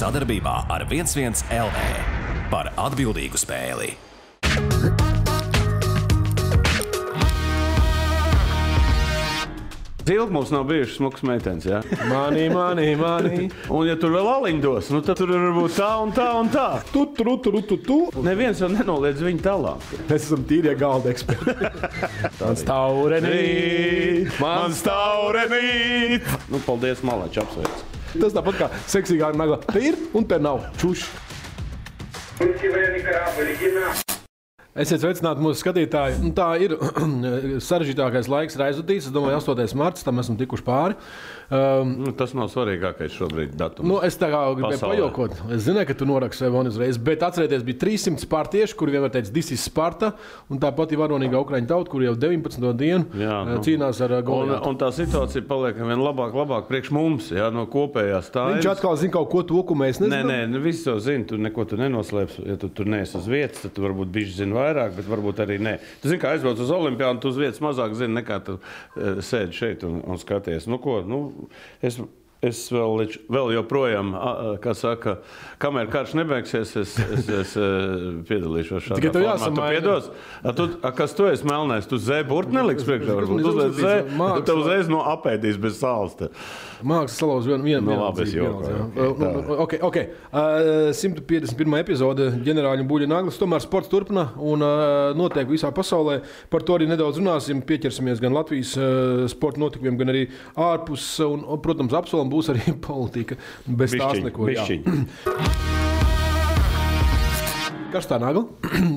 Sadarbībā ar 11 LV par atbildīgu spēli. Ilgi mums nav bijušas smukas meitenes, jā? Mani. Un ja tur vēl aliņu dos, nu tad tur var būt tā un tā un tā. Tu. Neviens jau nenoliedz viņu talantu. Mēs esam tīrie galda eksperti. Man staurenīt. Nu, paldies, Malač, apsveic. Tas tāpat kā seksīgā nagla. Te ir un te nav. Čuš. Esiet sveicināti mūsu skatītāji. Nu, tā ir sarežģītākais laiks ir aizvadīts. Es domāju, 8. marts, tam esam tikuši pāri. Tas nav svarīgākais šobrīd datums. Nu, es tā kā gribēju pajokot. Es zināju, ka tu noraksti sev uzreiz, bet atcerieties, bija 300 spartieši, kuri vienmēr teica, this is Sparta, un tāpat ir varonīga Ukraiņu tauta, kur jau 19. dienu cīnās ar Goliātu. Un tā situācija paliek vien labāk priekš mums, jā, no kopējās tājas. Viņš atkal zina kaut ko to, ko mēs nezinām. Nē, viss jau zina, tu neko tu nenoslēps. Ja tu tur neesi uz vietas, tad tu varbūt bišķi zini vairāk, bet varbūt arī nē. Tu zini, kā aizbrauc uz Olimpiādu, tu uz vietas mazāk zini, nekā tu sēdi šeit un skaties. Nu ko, es vēl joprojām, kā saka, kamēr karš nebeigsies, es piedalīšos šādā tikai formā. Tu piedos? Kas tu esi melnais? Tu zē burti neliks priekšā? Varbūt uzliec zē, tu uzreiz apēdīs bez sāls. Mākslas salauz vienu labi, es jokoju. Ok. 151. epizode ģenerāļa Buļļa Naglis. Tomēr sports turpina un notiek visā pasaulē. Par to arī nedaudz runāsim. Pieķersimies gan Latvijas sporta notikumiem, gan arī ārpus. Un, protams, apsolam būs arī politika. Bez tās neko. Karstā nagla.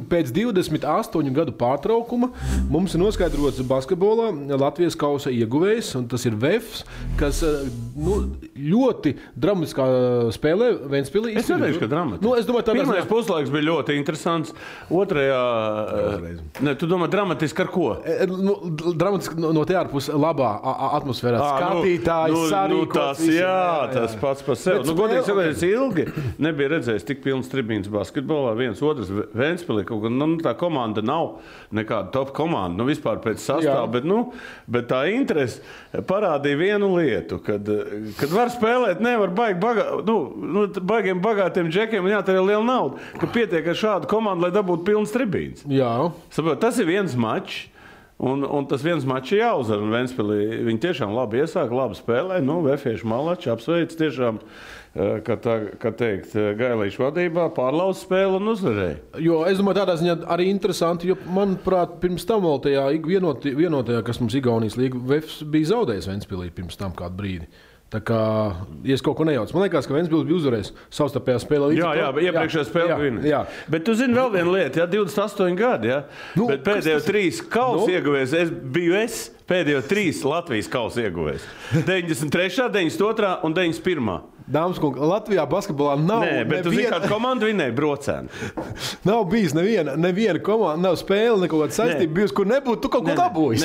Pēc 28 gadu pārtraukuma mums ir noskaidrots basketbolā Latvijas kausa ieguvējs, un tas ir Vefs, kas ļoti dramatiskā spēlē Ventspilī. Es neteikšu, ka dramatiski. Es domāju, pirmais puslaiks bija ļoti interesants. Otrajā... Tu domā dramatiski ar ko? Dramatiski no te ārpus labā atmosfērā. Skatītāji, sarīkots. Tas pats par sevi. Godīgi sakot, ilgi nebija redzējis tik pilns tribīns basketbolā. Otrs Ventspilī, kaut gan tā komanda nav nekāda top komanda, vispār pēc sastāva, bet tā interese parādīja vienu lietu, kad var spēlēt, nevar baigiem bagātiem džekiem un jātērē liela nauda, ka pietiek ar šādu komandu, lai dabūtu pilns tribīns. Jā. Saprot, tas ir viens mačs. Un tas viens mačs ir jāuzvar, un Ventspilī viņi tiešām labi iesāk, labi spēlē. Vefieši Malači apsveic tiešām, kā teikt, Gailīšu vadībā, pārlauz spēli un uzvarēja. Jo es domāju, tādā ziņā arī interesanti, jo, manuprāt, pirms tam vēl tajā vienotajā, kas mums Igaunijas līga, Vefs bija zaudējis Ventspilī pirms tam kādu brīdi. Tā kā, ja es kaut ko nejaucu, man liekas, ka Ventspils bija uzvarējis savstarpējā spēlē. Jā, iepriekšējā spēlē vinēja. Bet tu zini vēl vienu lietu, 28 gadi, bet pēdējo 3 kausa ieguvējs, es pēdējo 3 Latvijas kausa ieguvējs. 93., 92. un 91. Dāmas kungi, Latvijā basketbolā nav... Nē, bet tu zini, kādu komandu vinēja Brocēni. Nav bijis neviena komanda, nav spēle, neko kāda saistība bijusi, kur nebūtu tu kaut ko dabūjis.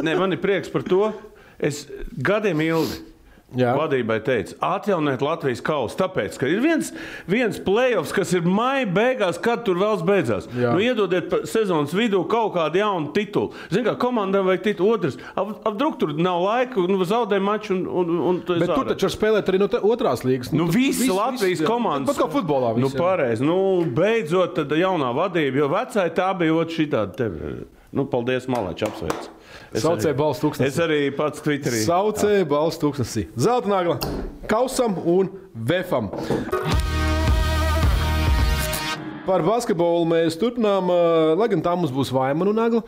Nē, man ir prieks par to. Es gadiem ilgi vadībai teica, atjauniet Latvijas kausu, tāpēc, ka ir viens play-offs, kas ir maija beigās, kad tur vēls beidzās. Iedodiet sezonas vidū kaut kādu jaunu titulu. Zini, kā komandām vajag titulu. Otrs, apdruk tur nav laika, zaudē maču un tu bet tu taču spēlēt arī no otrās līgas. Visi Latvijas komandas. Pat kā futbolā visi. Pareizi. Beidzot, tad jaunā vadība, jo vecāji tā bija šitādi tevi. Paldies, Malači, apsveic. Saucēja balss tūkstnesī. Es arī pats Twitterī. Saucēja balss tūkstnesī. Zelta nagla Kausam un Vefam. Par basketbolu mēs turpinām, lai gan tā mums būs Vaimanu nagla.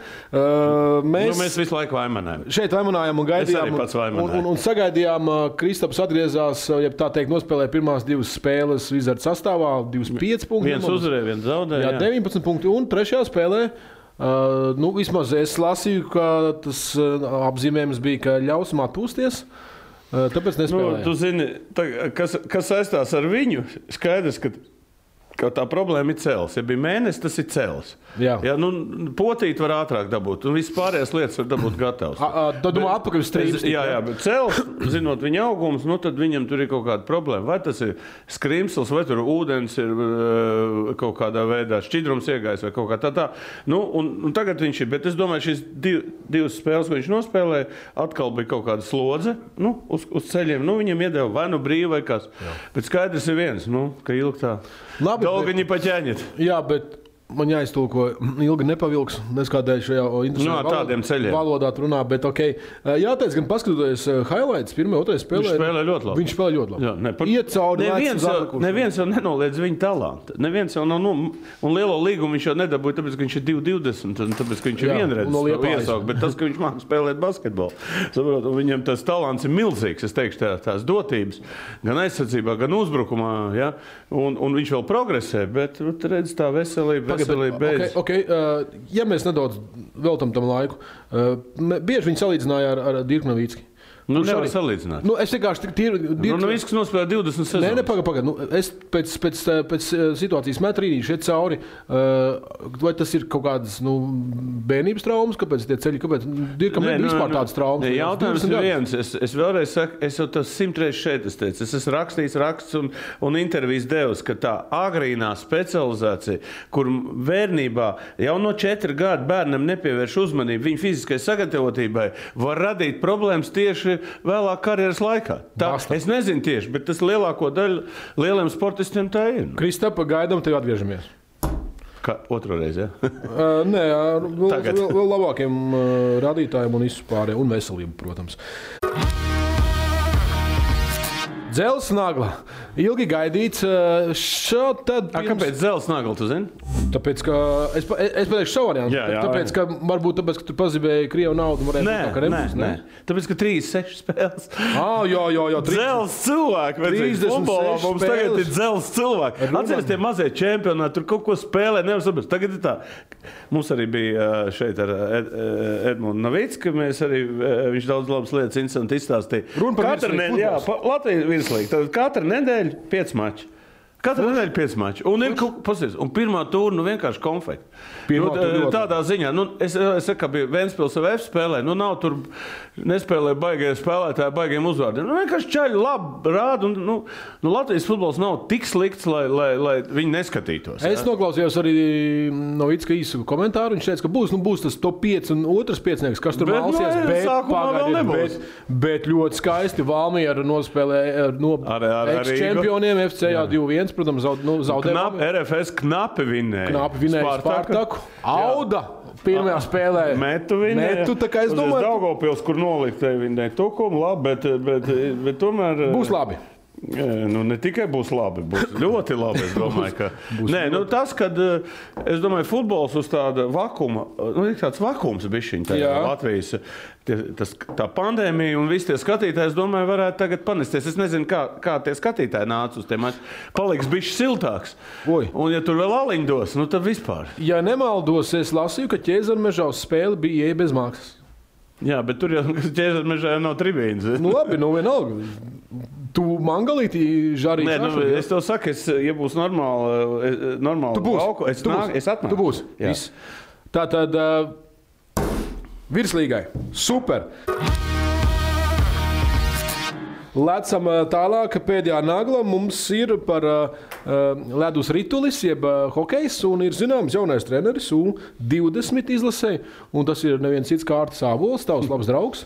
Mēs visu laiku vaimanājam. Šeit vaimanājam un gaidījām. Es arī pats vaimanāju. Un sagaidījām, Kristaps atgriezās, ja tā teikt, nospēlēja pirmās 2 spēles Wizards sastāvā, 25 punkti. Viens uzvarēja, viens zaudēja. 19 punkti un 3. spēlē. Vismaz es lasīju, ka tas apzīmējums bija, ka ļausim atpūsties, tāpēc nespēlēja. Tu zini, kas saistās ar viņu, skaidrs, ka tā problēma ir cels. Ja bija mēnesis, tas ir cels. Jā. Ja, potīt var ātrāk dabūt, un viss pārējās lietas var dabūt gatavs. Tad domā atpakaļ uz strīpsti. Jā, bet cels, zinot viņa augums, tad viņam tur ir kaut kāda problēma. Vai tas ir skrimsls, vai tur ūdens ir kaut kādā veidā šķidrums iegājis, vai kaut kā tā. Un tagad viņš ir, bet es domāju, šīs divas spēles, ko viņš nospēlēja, atkal bija kaut kāda slodze uz ceļiem. Viņam iedeva vai brīvi, vai kas. Jā. Bet skaidrs ir viens, ka ilgi tā. Labi, Dolga viņi paķēņet. Jā, bet man jāiztulko, ilgi nepavilks, neskādēļ šajā interesantā valodā runā, bet ok. Jāteic, gan paskatoties highlights, pirmā, otrajā spēlē. Viņš spēlē ļoti labi. Jā, Iet cauri neviens jau nenoliedz viņa talantu. Neviens jau nav, un lielo līgumu viņš jau nedabūja, tāpēc, ka viņš ir 2,20, un tāpēc, ka viņš ir vienreiz iesaukt, bet tas, ka viņš māca spēlēt basketbolu. Saprot, viņam tas talants ir milzīgs, es teikšu, tās dotības, gan aizsardzībā, gan uzbrukumā, ja? Un viņš vēl progresē, bet redz tā veselība. Ja mēs nedaudz veltam tam laiku, bieži viņi salīdzināja ar Dirku Novicki. Nevar salīdzināt. Es vienkārši Novicks nospēlēja 20 sezonas. Nē, pagaid. Es pēc situācijas metu rīnīšu iet cauri. Vai tas ir kaut kādas bērnības traumas? Kāpēc tie ceļi? Kāpēc Dirkam nebija vispār tādas traumas? Jautājums ir viens. Es vēlreiz saku, es jau tas 100 reizes šeit teicu. Es esmu rakstījis raksts un intervijas devis, ka tā agrīnā specializācija, kur bērnībā jau no 4 gadu bērnam nepievērš uzmanību viņa fiziskai sagatavotībai, var radīt problēmas tieši vēlāk karjeras laikā. Es nezinu tieši, bet tas lielāko daļu lieliem sportistiem tā ir. Kristapa, gaidām, tev atgriežamies. Otru reizi, ja? Nē, vēl labākiem radītājiem un izpārē, un veselību, protams. Dzels nagla. Ilgi gaidīts. Kāpēc dzels nagla, tu zini? Tāpēc, ka es pateikšu savu variantu. Tāpēc, ka tu pazibēji Krievu naudu. Nē. Tāpēc, ka 36 spēles. Jā. Dzels cilvēki. 36 mums tagad ir dzels cilvēki. Atceries tie mazie čempionāti, tur kaut ko spēlē, nevar saprast. Tagad ir tā. Mums arī bija šeit ar Edmundu Novicku, viņš daudz labas lietas interesanti izstāstīja. Katru nedēļu, Latvijas virslīga, tad katru nedēļu 5 mači. Katru nedēļu 5 mači. Un pirmā tūra vienkārši konfekti. Tādā ziņā. Es saku, ka bija Ventspils VF spēlē. Nav tur nespēlē baigie spēlētāji baigiem uzvārdiem. Vienkārši čaļi labi rāda. Latvijas futbols nav tik slikts, lai viņi neskatītos. Es noklausījos arī Novicka īsu komentāru. Viņš teica, ka būs tas top 5 un otrs piecnieks, kas tur malsies. Bet ļoti skaisti Valmiera nospēlē no ex-čempioniem FCA 2-1. Protams, zaudēja. RFS knapi vinnēja Spartaku. Auda pirmajā spēlē. Metu vinnēja. Tā kā es domāju. Daugavpils, kur noliktēja vinnēja Tukumu, labi, bet tomēr. Būs labi. Ne tikai būs labi, būs ļoti labi. Es domāju, ka tas, kad es domāju, futbols uz tāda vakuma, ir tāds vakums bišķiņ tajā Latvijas. Tā pandēmija un visi tie skatītāji, es domāju, varētu tagad panesties. Es nezinu, kā tie skatītāji nāca uz tiem. Paliks bišķi siltāks. Un ja tur vēl aliņu dos, tad vispār. Ja nemaldos, es lasīju, ka Ķēzarmežā uz spēli bija ieeja bez maksas. Jā, bet tur jau Ķēzarmežā nav tribīnas. Labi, vienalga. Tu mangalīti žarīt? Nē, es tev saku, ja būs normāli lauku, es atnāku. Tu būs. Tātad virslīgai. Super. Lecam tālāk, pēdējā nagla mums ir par ledus ritulis, jeb hokejs, un ir zināms jaunais treneris U20 izlasē, un tas ir neviens cits kā Ārtis Ābols, tavs labs draugs.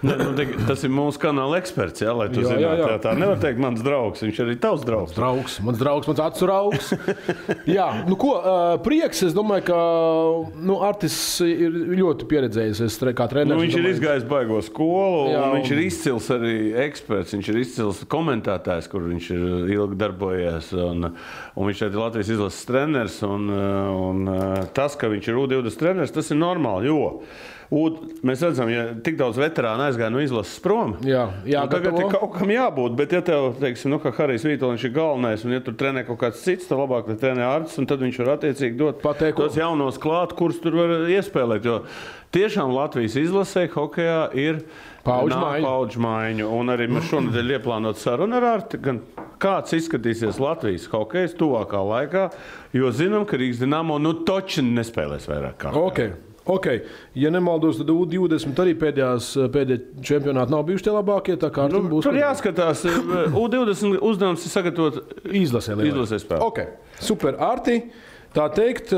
Tas ir mūsu kanāla eksperts, lai tu zinātu. Tā nevar teikt mans draugs, viņš arī tavs draugs. Mans draugs, mans acu raugs. Jā, prieks, es domāju, ka Artis ir ļoti pieredzējis kā treneris. Viņš ir izgājis baigo skolu, un viņš ir izcils arī eksperts, viņš ir izcils komentētājs, kur viņš ir ilgi darbojies, un viņš ir Latvijas izlases treneris, un tas, ka viņš ir U20 treneris, tas ir normāli, jo mēs redzam, ja tik daudz veterānu aizgāja no izlases prom. Jā, tagad ir kaut kam jābūt, bet ja tev, teiksim, kā Harijs Vītoliņš ir galvenais, un ja tur trenē kaut kāds cits, tad labāk, lai trenē Artis, un tad viņš var attiecīgi dot tos jaunos klāt, kurus tur var iespēlēt, jo tiešām Latvijas izlasē hokejā ir paudžu maiņu, un arī mēs šonadēļ ieplānot sarunu ar Arti, gan kāds izskatīsies Latvijas hokejs tuvākā laikā, jo zinām, ka Rīgas Dinamo toči nespēlēs vairāk kā. Ok, ja nemaldos, tad U20 arī pēdējie čempionāti nav bijuši tie labākie, tā kā būs... Tur jāskatās, U20 uzdevums ir sagatavot izlasē spēlē. Ok, super, Arti, tā teikt...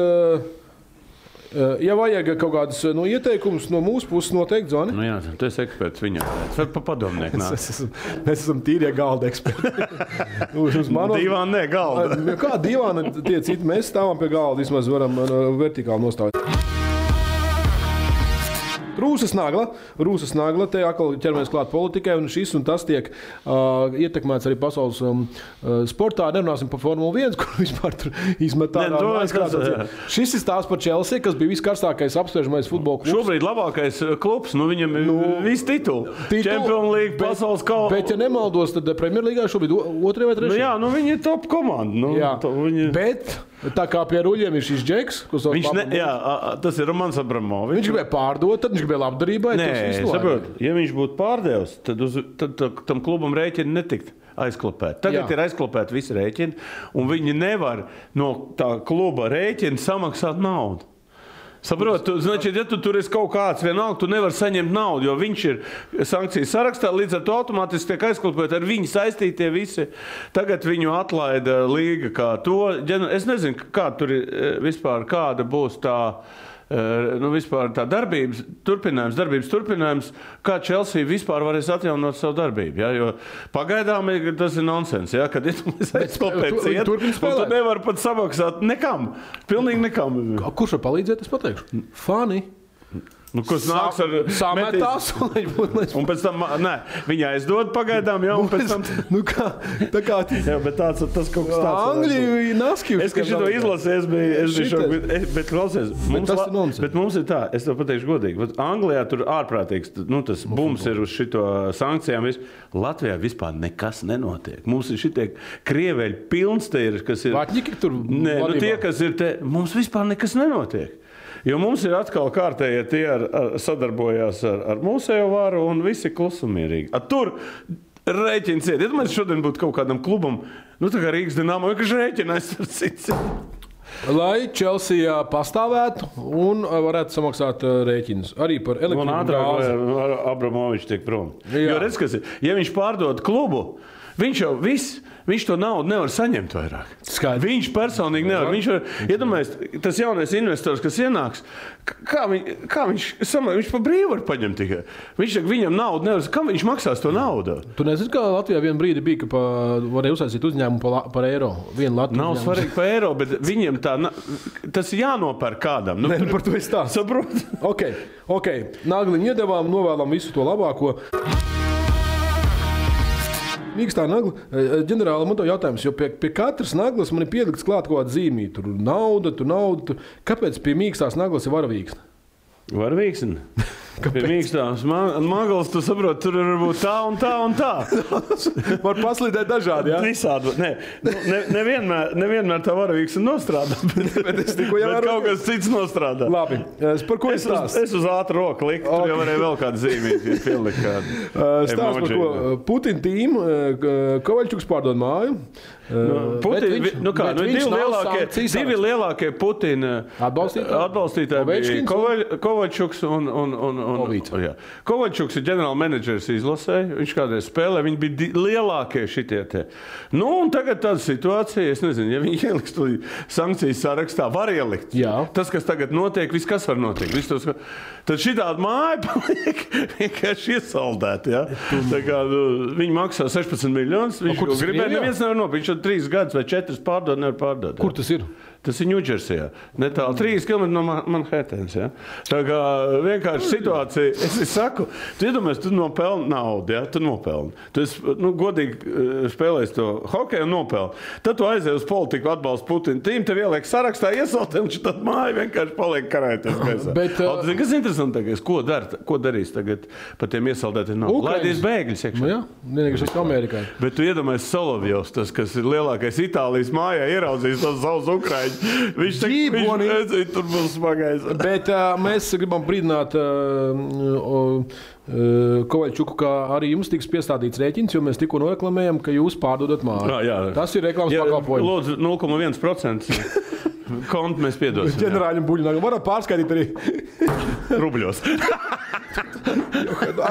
Ja vajag kaut kādas ieteikumus no mūsu puses, noteikti zvani. Nu jā, tu esi eksperts viņā. Var pa padomnieku nāk. Mēs esam tīrie galda eksperti. Divāni, ne, galda. Kā divāni tie citi? Mēs stāvam pie galda, vismaz varam vertikāli nostāvēt. Rūsas nagla, te atkal ķeramies klāt politikai, un šis un tas tiek ietekmēts arī pasaules sportā. Nerunāsim par Formulu 1, kur vispār tur izmetā. Šis ir stāsts par Chelsea, kas bija viskarstākais apspriežamais futbola klubs. Šobrīd labākais klubs, viņam ir visi tituli. Champions League, pasaules kausa. Bet, ja nemaldos, tad Premier Līgā šobrīd 2. vai 3. Viņi ir top komanda. Bet... Tā kā pie ruļiem ir šis džeks, tas ir Romans Abramovičs. Viņš gribēja pārdot, tad viņš gribēja labdarībai. Nē, saprot, ja viņš būtu pārdevis, tad tam klubam rēķini netikt aizklopēt. Tagad ir aizklopēt visi rēķini, un viņi nevar no tā kluba rēķina samaksāt naudu. Saprot, znači, ja tu tur esi kaut kāds vienalga, tu nevar saņemt naudu, jo viņš ir sankcijas sarakstā, līdz ar to automātiski tiek aizklopēt ar viņu saistītie visi. Tagad viņu atlaida līga kā to. Es nezinu, kā tur ir vispār, kāda būs tā, vispār tā darbības turpinājums, kā Chelsea vispār varēs atjaunot savu darbību. Ja? Jo pagaidām tas ir nonsens, ja? Kad aizklopēt ciet, un tu nevar pat samaksāt nekam. Pilnīgi nekam. Kurš var palīdzēt, es pateikšu? Fani. Kas nāks ar sametās, un pēc tam, viņi aizdod pagaidām, un pēc tam... tā kā... Jā, bet tas kaut kas tāds... Angļi naskīvs. Es, ka šito izlasēju, es biju šok, bet klausies, bet mums ir tā, es tev pateikšu godīgi, Anglijā tur ārprātīgs, tas bums ir uz šito sankcijām, Latvijā vispār nekas nenotiek. Mums ir šitie krieveļi pilns te ir, kas ir... Vatņiki tur... Nē, tie, kas ir te, mums vispār nekas nenotiek. Jo mums ir atkal kārtējie tie sadarbojās ar mūsējo varu un visi klusumierīgi. Tur rēķins iet. Ja mēs šodien būtu kaut kādam klubam, tā kā Rīgas Dinamo, ka rēķinais ar cits. Lai Chelsea pastāvētu un varētu samaksāt rēķinus. Arī par elektrību un gāzi. Abramovičs tiek prom. Jo redz, kas ir, ja viņš pārdod klubu, viņš to naudu nevar saņemt vairāk. Skaidrs. Viņš personīgi nevar. Viņš var, iedomājies, tas jaunais investors, kas ienāks, kā viņš pa brīvu var paņemt tikai. Viņam naudu nevar, kā viņš maksās to naudu? Tu nezini, kā Latvijā vienu brīdi bija, ka varēja uzsaistīt uzņēmumu par eiro. Nav svarīgi par eiro, bet viņiem tas ir jānopērk kādam. Par to es tā. Saprot? Ok. Nagliņu iedevām, novēlam visu to labāko. Mīkstā nagla. Ģenerāli, man to jautājums, jo pie katras naglas man ir pielikts klāt kaut kāda zīmīte. Tur nauda. Kāpēc pie mīkstās naglas ir varavīksne? Varavīksne? Pie mīkstās naglas, tu saproti, tur var būt tā un tā un tā. Var paslīdēt dažādi, jā? Visādi. Nevienmēr tā varavīksne nostrādā, bet kaut kas cits nostrādā. Labi. Par ko es stāstu? Es uz ātru roku liku, tur jau varēja vēl kādu zīmīti pielikt kādu. Stāst par ko? Putina tīmu, Kovaļčuks pārdod māju. Divi lielākie Putina atbalstītāji bija Kovaļčuks un Kovaļčuks ir ģenerāla menedžers izlasē, viņš kādreiz spēlē, viņi bija lielākie šitie te. Un tagad tāda situācija, es nezinu, ja viņi ieliks to sankcijas sarakstā, var ielikt. Jā. Tas, kas tagad notiek, viss kas var notiekt. Tad šitāda māja paliek vienkārši iesaldēta. Ja? Tā kā viņi maksā 16 miljonus, viņš gribēja, neviens nevar nopirkt, viņš 3 gadus vai 4 pārdod, nevar pārdot. Kur tas ir? Tas ir Ņūdžersijā. Netālu 3 km no Manhattanas. Ja? Tā kā vienkārši situācija, es saku, tu iedomājies, tu nopelni naudu, ja? Tu nopelni. Tu esi, godīgi spēlēs to hokeju un nopelni. Tad tu aizēji uz politiku, atbalstu Putinu tīm, tev ieliek sarakstā, iesaltē, un tad māja vienkārši paliek karēties gaisā. Kas interesantākais, ko darīs tagad par tiem iesaldētiem naudu? Laidīs bēgļus iekšā. Jā, vienīgais uz Amerikai. Bet tu iedomājies Solovjovs, tas, kas ir lielākais Itālijas mājā, ieraudzījis tos savus Ukraiņus. Viņš redzēja, tur būs smagais. Bet mēs gribam brīdināt Kovaļčuku, ka arī jums tiks piestādīts rēķins, jo mēs tikko noreklamējam, ka jūs pārdodat māju. Jā. Tas ir reklāmas pakalpojums. Lūdzu, 0,1% kontu mēs piedosim. Ģenerāļam Buļļinājumam varat pārskaitīt arī rubļos.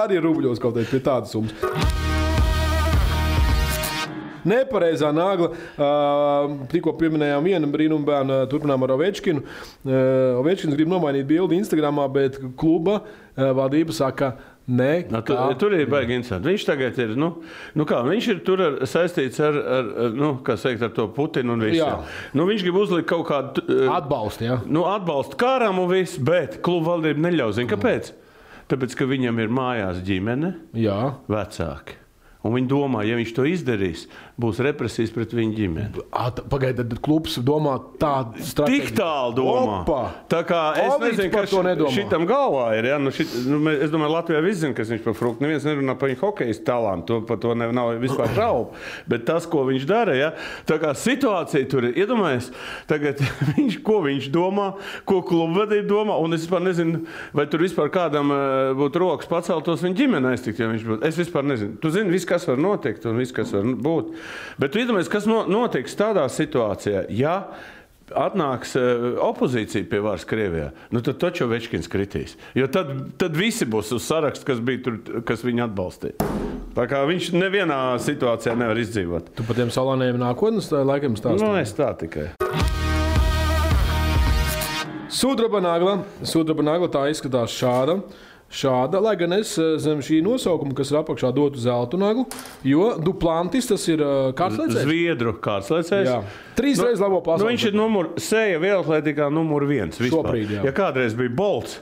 Arī rubļos kaut kādā pie tādas summas. Nepareizā nagla. Tikko pieminējām vienu brīnumu bērnu, turpinām ar Ovečkinu. Ovečkins grib nomainīt bildi Instagramā, bet kluba valdība saka, nē. Tur ir baigi interesanti. Viņš tagad ir, viņš ir tur saistīts ar to Putinu un visu. Viņš grib uzlikt kaut kādu atbalstu, atbalstu kāram un visu, bet kluba valdība neļauj. Zini, kāpēc? Tāpēc, ka viņam ir mājās ģimene, vecāki. Un viņi domā, ja viņš to izdarīs, būs represijas pret viņu ģimeni. Pagaidiet, tad klubs domā tādu stratēģiju. Tik tālu domā. Opa. Tā kā es nezinu, kas šitam galvā ir. Ja? Es domāju, Latvijā viss zina, kas viņš par Fruktu. Neviens nerunā par viņu hokejas talantu. Par to nav vispār šaubu. Bet tas, ko viņš dara, ja? Tā kā situācija tur ir. Iedomājies, tagad ko viņš domā, ko klubu vadība domā. Un es vispār nezinu, vai tur vispār kādam būtu rokas paceltos viņa ģimene aiztikt, ja viņš būtu. Es vispār nezinu. Tu zini, viss, kas var notikt un viss, kas var būt. Bet tu iedomājies, kas notiks tādā situācijā, ja atnāks opozīcija pie varas Krievijā, tad taču Ovečkins kritīs. Jo tad visi būs uz sarakstu, kas bija tur, kas viņu atbalstīja. Tā kā viņš nevienā situācijā nevar izdzīvot. Tu par tiem salāniem nākotnes laikam stāsti? Es tā tikai. Sudraba nagla tā izskatās šāda, lai gan es zem šī nosaukuma, kas ir apakšā, dotu zeltu naglu, jo Duplantis tas ir kārtslēcējs. Zviedru kārtslēcējs. 3 reizes labo pasaules. Viņš ir sēja vielatlētikā numur 1 vispār. Šobrīd, jā. Ja kādreiz bija Bolts,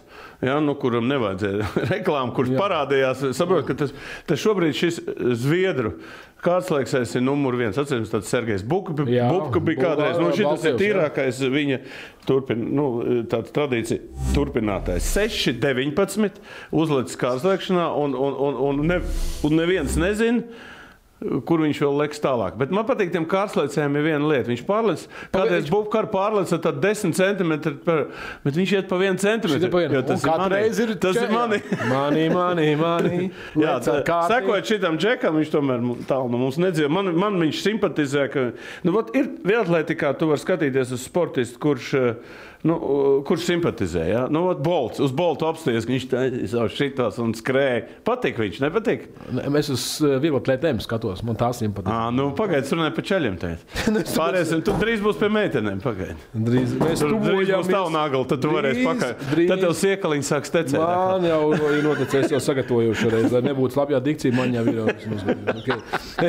kuram nevajadzēja reklāmu, kurš parādījās, saprot, ka tas šobrīd šis Zviedru kārtslēcējs ir numur 1. Atceries, tāds Sergejs Bubka bija kādreiz. Šitas ir tīrākais viņa tāda tradīcija turpinātājs. 6-19 uzlicis kārtslēkšanā un neviens nezina, kur viņš vēl liks tālāk. Bet man patīk, tiem kārtslēcējiem ir viena lieta. Viņš pārlec, kādreiz Bubkar pārleca tad 10 centimetri, bet viņš iet pa 1 centimetru. Tas ir mani. Jā, sekojot šitam džekam, viņš tomēr tālu no mums nedzīvo. Man viņš simpatizē, ka ir vielatlētikā, tu var skatīties uz sportistu, kurš simpatizē. Ja? Bolts, uz Boltu apsties, viņš šitās un skrēja. Patīk viņš, nepatīk? Es uz vieglatlētēm skatos, man tās simpatizē. Pagaid, es runāju par čaļiem tēt. Pāriesim, tu drīz būs pie meitenēm, pagaid. Drīz būs tavu nagli, tad tu varēsi pakaļ. Tad tev siekaliņi sāk stecēt. Man jau ir noticējis, jau sagatavojuši reiz, lai nebūtu slapjā dikcija, man jau ir.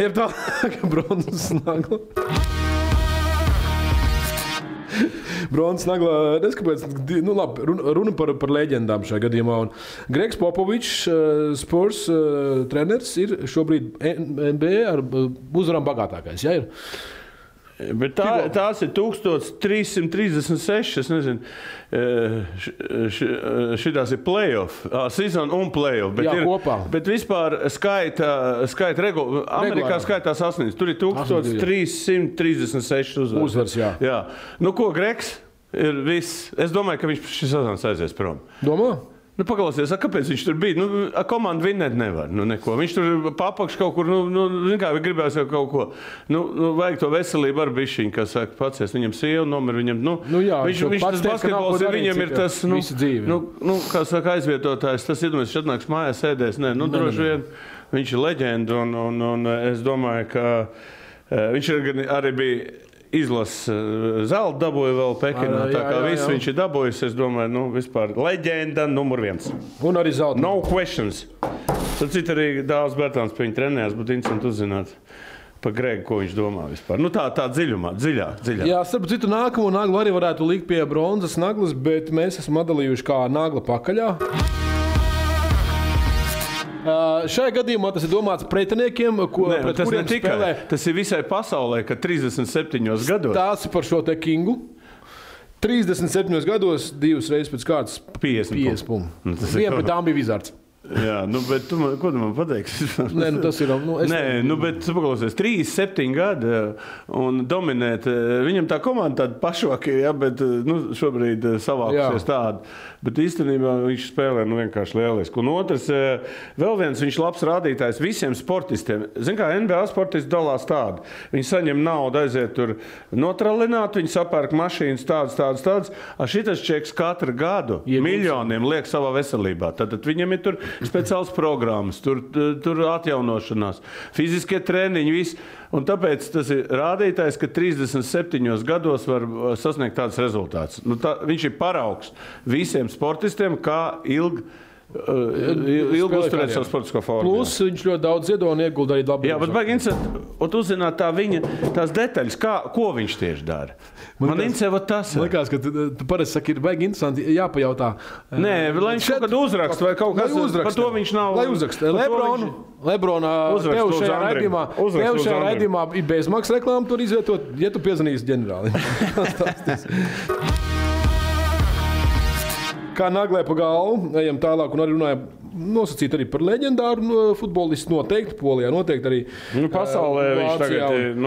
Ir tā, ka bronzas nagla. Bronzas nagla, neskapēc, runa par leģendām šajā gadījumā. Un Gregs Popovičs, Spurs treneris, ir šobrīd NBA ar uzvarām bagātākais. Ja, ir? Bet tās ir 1336, es nezinu, šitās ir play-off, season un play-off. Bet, bet vispār skaita regula, Amerikā skaitās 8, tur ir 1336 uzvaras. Jā. Ko Gregs ir viss? Es domāju, ka viņš šis sezonas aizies prom. Domā? Paklausies, kāpēc viņš tur bija? Komanda vinnēt nevar. Neko. Viņš tur papakš kaut kur, gribēs jau kaut ko. Vajag to veselību ar bišķiņu, kas saka, pacies, viņam sieva, nomir viņam, viņš tas basketbols ir, viņam ir tas, kā saka, aizvietotājs, tas iedomājas, viņš atnāks mājās sēdēs, droši vien, viņš ir leģenda, un es domāju, ka viņš arī bija izlases zelta dabūja vēl Pekinā, tā kā viss viņš ir dabūjis, es domāju, vispār leģenda numur 1. Un arī zelta. No questions. Tad cita arī Dāvs Bērtāns pie viņa trenējās, būtu interesanti uzzināt. pa Gregu, ko viņš domā vispār. Nu, tā dziļāk. Jā, starp citu, nākamo naglu arī varētu likt pie bronzas naglas, bet mēs esam atdalījuši kā nagla pakaļā. Šajā gadījumā tas ir domāts pretiniekiem, pret kuriem spēlē. Tas ir visai pasaulē, ka 37 gados. Tās ir par šo te Kingu. 37 gados, 2 reizes pēc kārtas 50 punktu. Viena pret tām bija Vizards. Jā, bet ko tu man pateiksi? Nē, tas ir. Bet paklausies, 37 gadi un dominēt. Viņam tā komanda tāda pašvaki, bet šobrīd savākusies tāda. Bet īstenībā viņš spēlē vienkārši lieliski. Un otrs, vēl viens viņš labs rādītājs visiem sportistiem. Zin kā, NBA sportisti dalās tādi. Viņi saņem naudu, aiziet tur notralināt, viņi sapērk mašīnas tādas. Šitas čeks katru gadu miljoniem liek savā veselībā. Tad viņam ir tur speciāls programmas, tur atjaunošanās, fiziskie treniņi, viss. Un tāpēc tas ir rādītājs, ka 37 gados var sasniegt tāds rezultāts. Viņš ir paraugs visiem sportistiem, kā ilgi uzturēt savu sportisko formu. Plus viņš ļoti daudz ziedo un iegulda arī labi. Jā, bet baigi interesanti, un uzzināt tās detaļas, ko viņš tieši dara. Man interesē, tas ir. Likās, ka tu parasti saki, ir baigi interesanti jāpajautā. Nē, lai viņš kaut kad uzrakst vai kaut kas, par to viņš nav. Lai uzrakst. Lebrona tev šajā raidījumā ir bezmaksas reklāma tur izvietot, ja tu piezvanīsi ģenerālim. Kā naglē pa galvu, ejam tālāk un arī runājam nosacīt arī par leģendāru futbolistu noteikti, Polijā noteikti arī pasaulē viņš tagad ir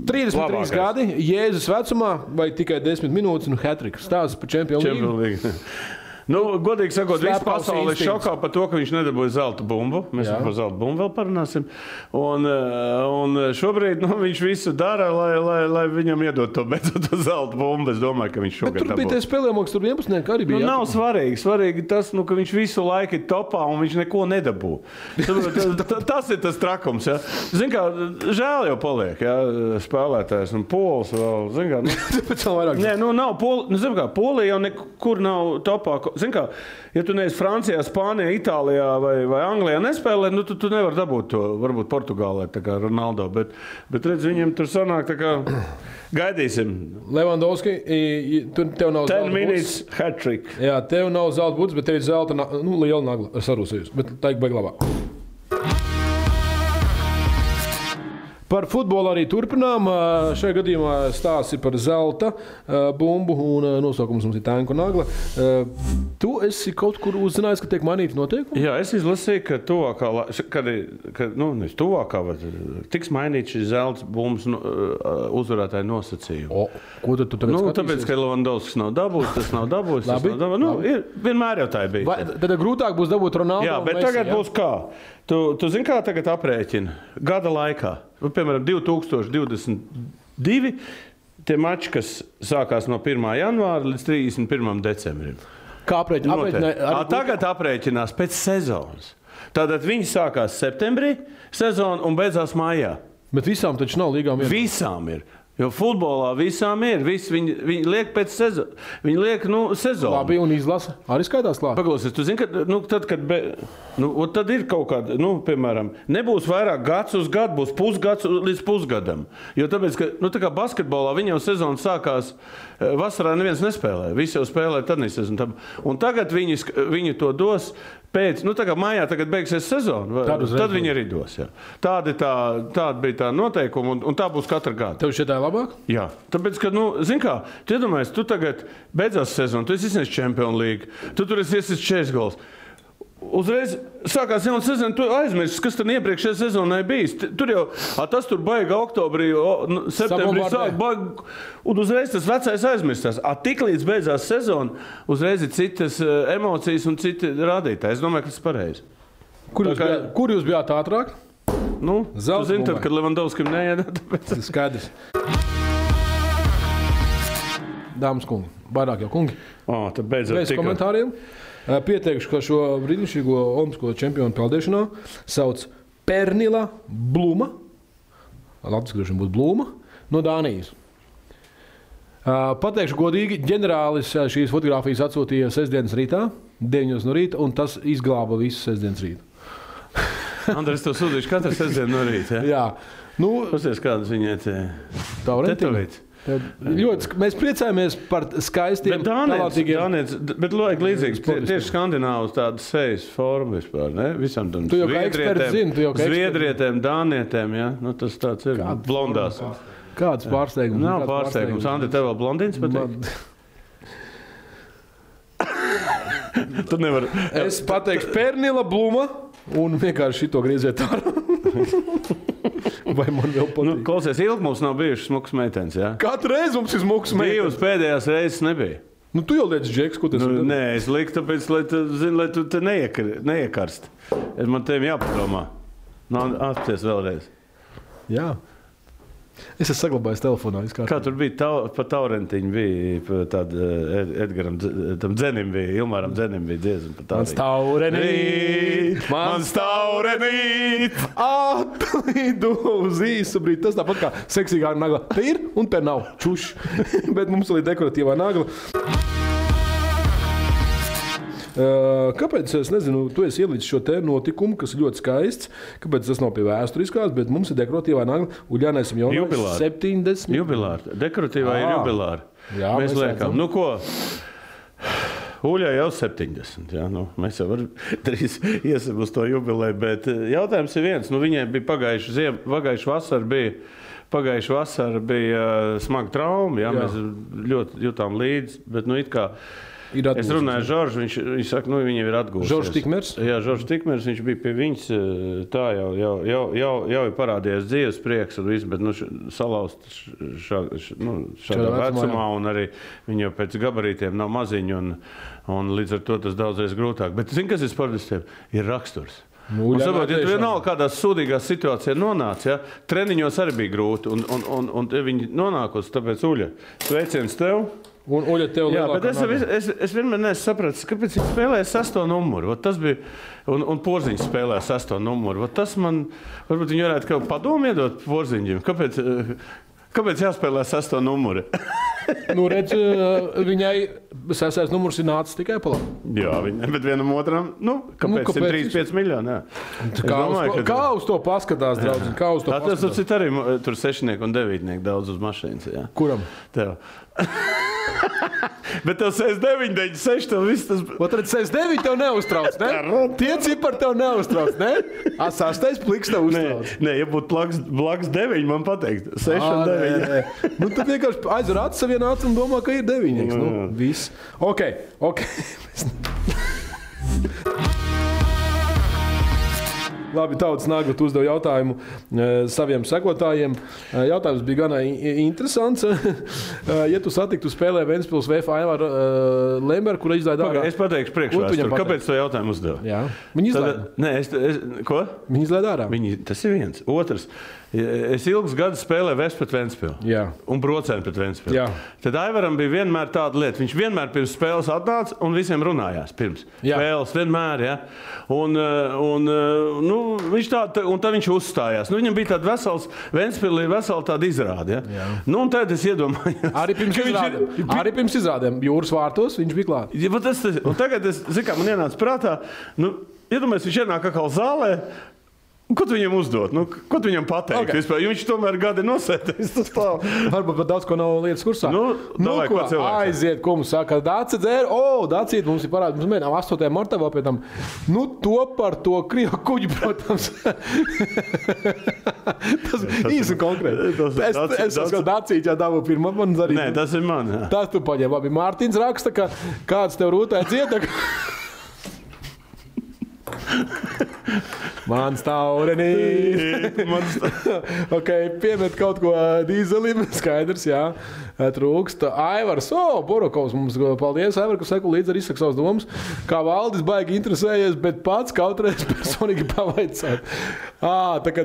33 gadi, Jēzus vecumā vai tikai 10 minūtes un hat-trick. Stāsts par Champions League. Godīgi sakot, viss pasaule ir šokā par to, ka viņš nedabūja zelta bumbu. Mēs par zelta bumbu vēl parunāsim. Un šobrīd viņš visu dara, lai viņam iedod to zelta bumbu. Es domāju, ka viņš šogad dabūja. Bet tur bija tie spēlējumāks, tur 11 arī bija. Nav svarīgi. Svarīgi tas, ka viņš visu laiku ir topā un viņš neko nedabū. Tas ir tas trakums. Ja? Zin kā, žēl jau paliek, ja? Spēlētājs un Pols vēl. Zin kā, Nē, nav Polija jau nekur nav topā. Zin kā, ja tu neesi Francijā, Spānijā, Itālijā vai Anglijā nespēlē, tu nevari dabūt to, varbūt Portugālē, tā kā Ronaldo, bet redz, viņam tur sanāk, tā kā gaidīsim. Levandovski, tev nav 10 minutes hat-trick. Jā, tev nav zelta buds, bet tev ir zelta, liela nagla ar sarūsējusi, bet tā ir baigi labāk. Par futbolu arī turpinām. Šajā gadījumā stāsts ir par zelta bumbu un nosaukums mums ir Tanku nagla. Tu esi kaut kur uzzinājis, ka tiek mainīti noteikumi? Jā, es izlasīju, ka tuvākā, tiks mainīts šis zelta bumbas uzvarētāja nosacījumi. Ko tu tagad skatīsies? Tāpēc, ka Levandovskis nav dabūjis, tas nav dabūjis. Vienmēr jau tā ir bijis. Tad grūtāk būs dabūt Ronaldo. Jā, bet tagad būs kā? Tu zini, kā tagad aprēķina? Gada laikā. Piemēram, 2022 tie mači, kas sākās no 1. janvāra līdz 31. decembrim. Kā aprēķina? Tagad aprēķinās pēc sezonas. Tātad viņi sākās septembrī sezonu un beidzās maijā. Bet visām taču nav līgām vienā? Visām ir. Jo futbolā visām ir. Viņi liek pēc sezonu. Viņi liek sezonu. Labi, un izlasa. Arī skaitās klāt. Paklausies, tu zini, ka tad ir kaut kāda, piemēram, nebūs vairāk gads uz gadu, būs pusgads līdz pusgadam. Jo tāpēc, ka, tā kā basketbolā viņam sezona sākās, vasarā neviens nespēlē. Visi jau spēlē tad nesezonu. Un tagad viņi to dos pēc, tā kā mājā tagad beigsies sezona, tad viņi arī dos. Jā. Tāda bija tā noteikuma, un tā būs katru gadu. Tev šeit tā ir labāk? Jā, tāpēc, ka, zini kā, tu iedomājies, tu tagad beidzās sezonu, tu esi izsniedz Champions League, tu tur esi 40 gols. Uzreiz sākās jauna sezona, tu aizmirsti, kas tad iepriekšējā sezonā bijis. Tur jau, tas tur baiga oktobrī, septembrī sāk baiga, un uzreiz tas vecais aizmirstās. Tik līdz beidzās sezona, uzreiz ir citas emocijas un citi rādītāji. Es domāju, ka tas ir pareizi. Kur jūs bijāt ātrāk? Tu zini, tad, kad Levandovskim neiedā, tāpēc. Skaidrs. Dāmas kungi, vairāk jau kungi. Tad beidzot bez komentāriem. Pieteikšu, ka šo brīnišķīgo olimpisko čempionu peldēšanā sauc Pernila Bluma. Latvijas griežam būtu Bluma no Dānijas. Pateikšu godīgi, ģenerālis šīs fotogrāfijas atsūtīja sestdienas rītā, 9 no rīta, un tas izglāba visu sestdienas rītu. Andres, tev sūdīšu katru sestdienu no rīta. Jā. Pasies, kādas viņai Taurentiņa. Mēs priecājamies par skaistiem, talantīgiem. Bet vajag līdzīgs, tieši skandināvus tādas sejas formu vispār, ne? Visam tam Tu jau kā eksperts zini, zviedrietēm, dānietēm, ja? Nu, tas tāds ir blondās. Kāds pārsteigums? Nav pārsteigums. Andi, tev vēl blondīns patīk? Tu nevar... Es pateikšu Pernila Bluma un vienkārši šito grieziet ārā. Vai man vēl patīk? Klausies, ilgi mums nav bijušas smukas meitenes, jā? Katru reizi mums ir smukas meitenes. Divas pēdējās reizes nebija. Tu jau liec Džeks, ko tas ir? Nē, es liku tāpēc, lai tu te neiekarst. Man tevi jāpadomā. Atpties vēlreiz. Jā. Es esmu saglabājis telefonā. Kā tur bija pa Taurentiņu, bija tāda Edgaram, tam Dzenim bija, Ilmāram Dzenim bija dziesma. Mans taurenīt, atlidu uz īsu brīdi. Tas tāpat kā seksīgā nagla. Te ir un te nav. Čuš. Bet mums ir dekoratīvā nagla. Kāpēc, es nezinu, tu esi ielīdz šo te notikumu, kas ir ļoti skaists, kāpēc tas nav pie vēsturiskās, bet mums ir dekoratīvā nagla Uļānēsim jaunais 70. Jubilāri. Dekoratīvā ir jubilāri. Jā, mēs liekam. Nu ko, Uļai jau 70. Jā, mēs jau drīz iesim uz to jubilēju, bet jautājums ir viens. Viņai bija pagājuši vasara bija smaga trauma, jā, mēs ļoti jutām līdzi, bet it kā es runāju ar Žoržu, viņš saka, viņam ir atgūsies. Žoržs Tikmers? Jā, Žoržs Tikmers, viņš bija pie viņas, tā jau ir parādījies dzīves prieks un viss, bet salauzt šādā vecumā un arī viņa jau pēc gabarītiem nav maziņa un līdz ar to tas daudzreiz grūtāk. Bet zini, kas ir sportistiem? Ir raksturs. Saprot, ja tu vienalga kādās sūdīgās situācijās nonāc, ja, treniņos arī bija grūti un viņi nonākos, tāpēc Uļa, sveiciens tev. Un Uļa tev lielākā bet es vienmēr neesmu sapratis, kāpēc viņš spēlēja 6. numuru. Tas bija, un Porziņš spēlēja 6. numuru. Tas man, varbūt viņi varētu kaut padomu iedot Porziņģim. Kāpēc jāspēlē 6. numuru? Redz, viņai 6. numurs ir nācis tikai pa labu. Jā, bet vienam otram, kāpēc 135 miljoni? Kā uz to paskatās, draudziņ? Kā uz to paskatās? Tas arī tur 6 un 9 daudz uz mašīnas. Jā. Kuram? Tev. Bet tev 69, 96, tev viss tas... Tad 69 tev neuztrauc, ne? Tie cipari tev neuztrauc, ne? 6. pliks tev uztrauc. Nē, ja būtu blaks 9, man pateikt. 6 un 9. Tad vienkārši aizver acis savienā acis un domā, ka ir 9. Viss. Ok. Labi, Tautas Nagla uzdev jautājumu saviem sekotājiem. Jautājums bija gana interesants. Ja tu satiktu spēlē Ventspils VF Aivaru Lemberu, kura izlaida ārā... Es pateikšu priekšvēsturi. Kāpēc to jautājumu uzdev? Jā. Viņi izlaida. Nē, ko? Viņi izlaida ārā. Tas ir viens. Otrs. Es ilgus gadus spēlēju Vest pret Ventspilu. Jā. Un Brocēnu pret Ventspilu. Jā. Tad Aivaram bija vienmēr tāda lieta. Viņš vienmēr pirms spēles atnāca un visiem runājās pirms. Jā. Spēles vienmēr, ja. Viņš tā, un tad viņš uzstājās. Viņam bija tāda Ventspilī vesela tāda izrāde, ja. Un tad es iedomājos. Arī pirms izrādēm Jūras vārtos viņš bija klāt. Ja, un tagad man ienāca prātā, iedomājies, viņš ienāk atkal zālē. Ko tu viņam uzdot? Ko tu viņam pateikt? Okay. Vispār? Viņš tomēr gadi nosēties. Varbūt pat daudz ko nav lietas kursā. Aiziet, ko mums saka, Dāci dzēra. Dācīt, mums ir parādi. Mums mēģinām 8. martā vēl pie tam. To par to Krievu kuģi, protams. Tas īsi konkrēti. Es saku, Dācīt, jā, davu pirmā man zarīt. Nē, tas ir man. Jā. Tas tu paņem. Labi, Mārtiņš raksta, ka kāds tev rūtē dzieda. Mans taurenīt. Piemet kaut ko dīzelim, skaidrs, jā. Trūkst. Aivars, Borokovs mums, paldies, Aivar, ka seku līdzi arī izsaka savas domas. Kā Valdis baigi interesējies, bet pats kaut reiz personīgi pavaicāt. Tā kā,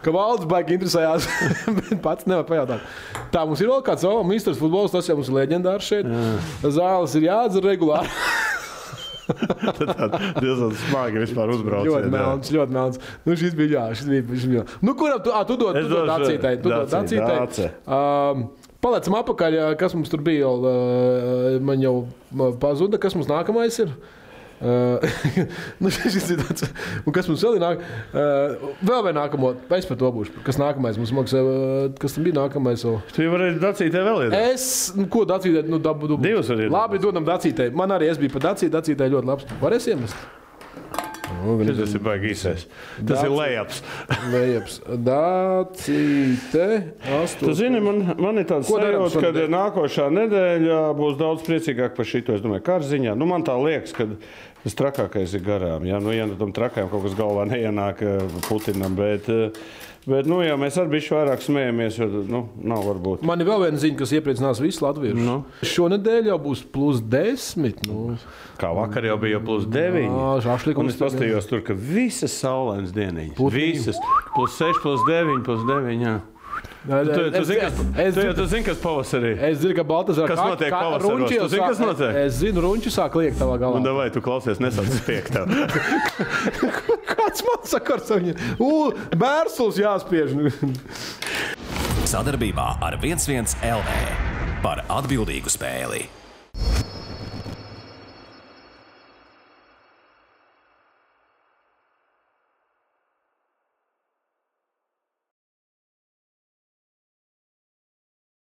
ka Valdis baigi interesējās, bet pats nevar pajautāt. Tā, mums ir vēl kāds misters futbols, tas jau mums ir leģendārs šeit. Zāles ir jādzer regulāri. Tad diezgan smagi vispār uzbrauciet. Ļoti melns. Šis bija. Kuram tu dod Dācītai? Tu dod Dācītai. Palecam apakaļ, kas mums tur bija. Man jau pazuda, kas mums nākamais ir. Šis ir tāds, un kas mums vēl ir nāk? Vēl vai nākamo, es par to būšu. Kas nākamais mums maksā, kas tam bija nākamais? Tu varēji Dacītē vēl iedot. Ko Dacītē? Divas var iedot. Labi, dodam Dacītē. Man arī es biju par Dacītē, Dacītē ļoti labs. Varēs iemest? Tas ir baigi īsais. Tas ir lejaps. Dacīte. Tu zini, man ir tāds sajūta, ka nākošā nedēļa būs daudz priecīgāk par šito. Es domāju, kārziņā. Man tā liekas, ka tas trakākais ir garām. Ja tam trakajam kaut kas galvā neienāk Putinam, bet jā, mēs arī bišķi vairāk smējamies, jo nav varbūt. Man ir vēl viena ziņa, kas iepriecinās visus latviešus. Šonedēļ jau būs +10. Kā vakar jau bija +9. Un es pastījos tur, ka visas saulainas dieniņas. Visas. +6, +9, +9, jā. Tu zini, kas pavasarī? Es zinu, ka Baltazar kas notiek pavasaros. Tu zini, kas notiek? Es zinu, runči sāk liekt tavā galā. Un davai, tu klausies, nesāc spiegt tev. Kāds man sakars ar viņu? Bērsuls jāspiež. Sadarbībā ar 11 LV par atbildīgu spēli.